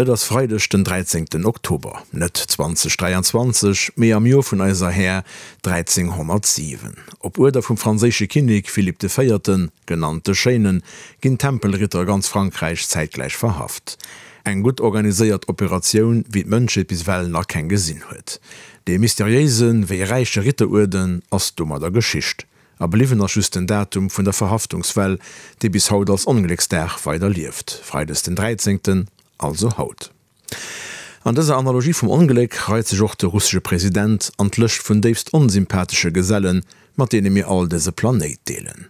Et ass Freideg den 13 Oktober, net 2023, mee am Joer vun eiser Här 1307. Op Uerder vum franséische Kinnek Philippe de Véierten, genannt de Schéinen, ginn d'Tempelritter a ganz Frankräich zäitgläich verhaft. Eng gutt organiséiert Operatioun, wéi d'Mënschheet bis ewell nach keng gesinn huet. Dee mysteriéise wéi räiche Ritteruerden ass domadder Geschicht. A bliwwen ass just den Datum vun der Verhaftungswell, dee bis haut als Onglécksdag weider lieft, Freides den 13., also haut. An dëser Analogie vum Ongléck reit sech och de russesche President an d'Lëscht vun déifst onsympathesche Gesellen, mat deene mir all dëse Planéit deelen.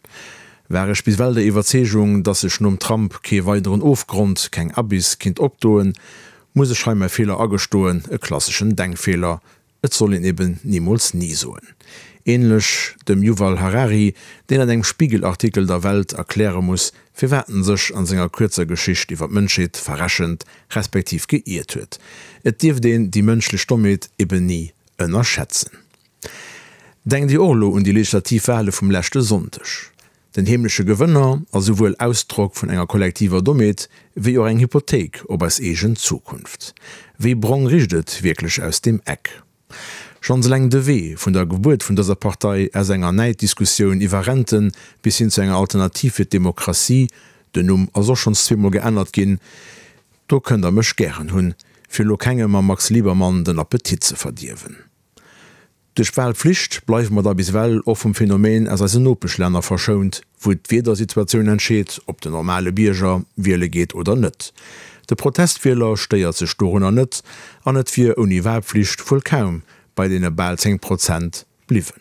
War ech bis well der Iwwerzeegung, datt sech nom Trump kee weideren Ofgrond, keng Abyss kinnt opdoen, muss ech hei mäi Feeler agestoen, e klasseschen Denkfeeler, Et soll een eben nimools ni soen. Ähnlech dem Yuval Harari, deen an engem Spiegel-Artikel der Welt erkläre muss, firwat en sech an senger kuerzer Geschicht iwwer d'Mënschheet verrechent, respektiv geiert huet. Et dierft een déi mënschlech Dommheet eben ni ënnerschätzen. Denkt Dir och elo un déi legislativ Wahle vum leschte Sonndeg? Den heemleche Gewënner ass esouwuel Ausdrock vun enger kollektiver Dommheet, wéi och eng Hypothéik op eis eegen Zukunft. Wéi brong richt et wierklech aus deem Eck? Schonns eleng de Wee vun der Gebuert vun dëser Partei aus enger Näiddiskussioun iwwer Renten bis hin zu enger Alternativ fir d'Demokratie, den Numm ass och schonns zweemol geännert ginn, do kënnt der mech gären hunn, fir elo kengem mam Max Liebermann den Appetit ze verdierwen. Duerch d'Wahlpflicht bleiwe mer da bis ewell och vum Phänomen aus eisen Nopeschlänner verschount, wou d'Wiedersituatioun entscheet, ob den normale Bierger wiele geet oder net. De Protestwieler stéiert sech dorunner net an et wier ouni Wahlpflicht wuel kaum bei deene bal 10 Prozent bliwwen.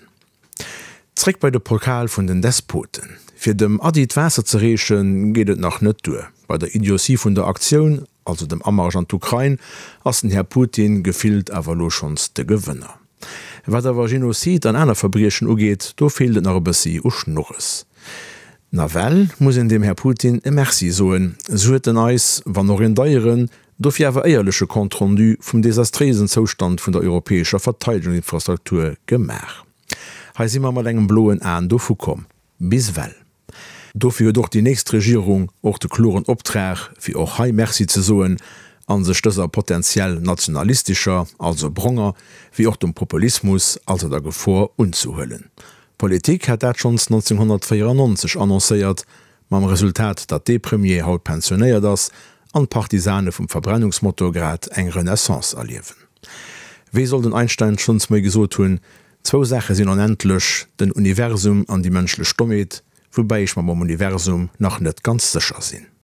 Zréck bei de Pokal vun den Despoten. Fir dem Ady d'Waasser ze reechen, geet et nach net duer. Bei der Idiotie vun der Aktioun also dem Amarsch an d'Ukrain, ass den Här Putin gefillt awer elo schonns de Gewënner. Wat awer Genozid an aner Verbriechen ugeet, do feelt et nach e bëssi u Schnurres. Nawell muss een dem Här Putin e Merci soen, sou huet en eis, wann och een deieren, dofir awer éierleche Compte rendu vum desastréisen Zoustand vun der europäescher Verteidegungsinfrastruktur gemaach. Hei si mer mat engem bloen Aen dovu komm. Bis ewell. Dofir huet och déi nächst Regierung och de kloren Optrag, fir och hei Merci ze soen a sech dëser potentiell nationalistescher, also bronger, wéi och dem Populismus, also der Gefor, unzehuelen. D'Politik hat dat schonns 1994 annoncéiert, mam Resultat, datt dee Premier haut pensionéiert ass an d'Partisane vum Verbrennungsmotor grad eng Renaissance erliewen. Wéi soll den Einstein schonns méi gesot hunn, Zwou Saache sinn onendlech, den Universum an déi mënschlech Dommheet, woubäi ech mer mam Universum nach net ganz sécher sinn.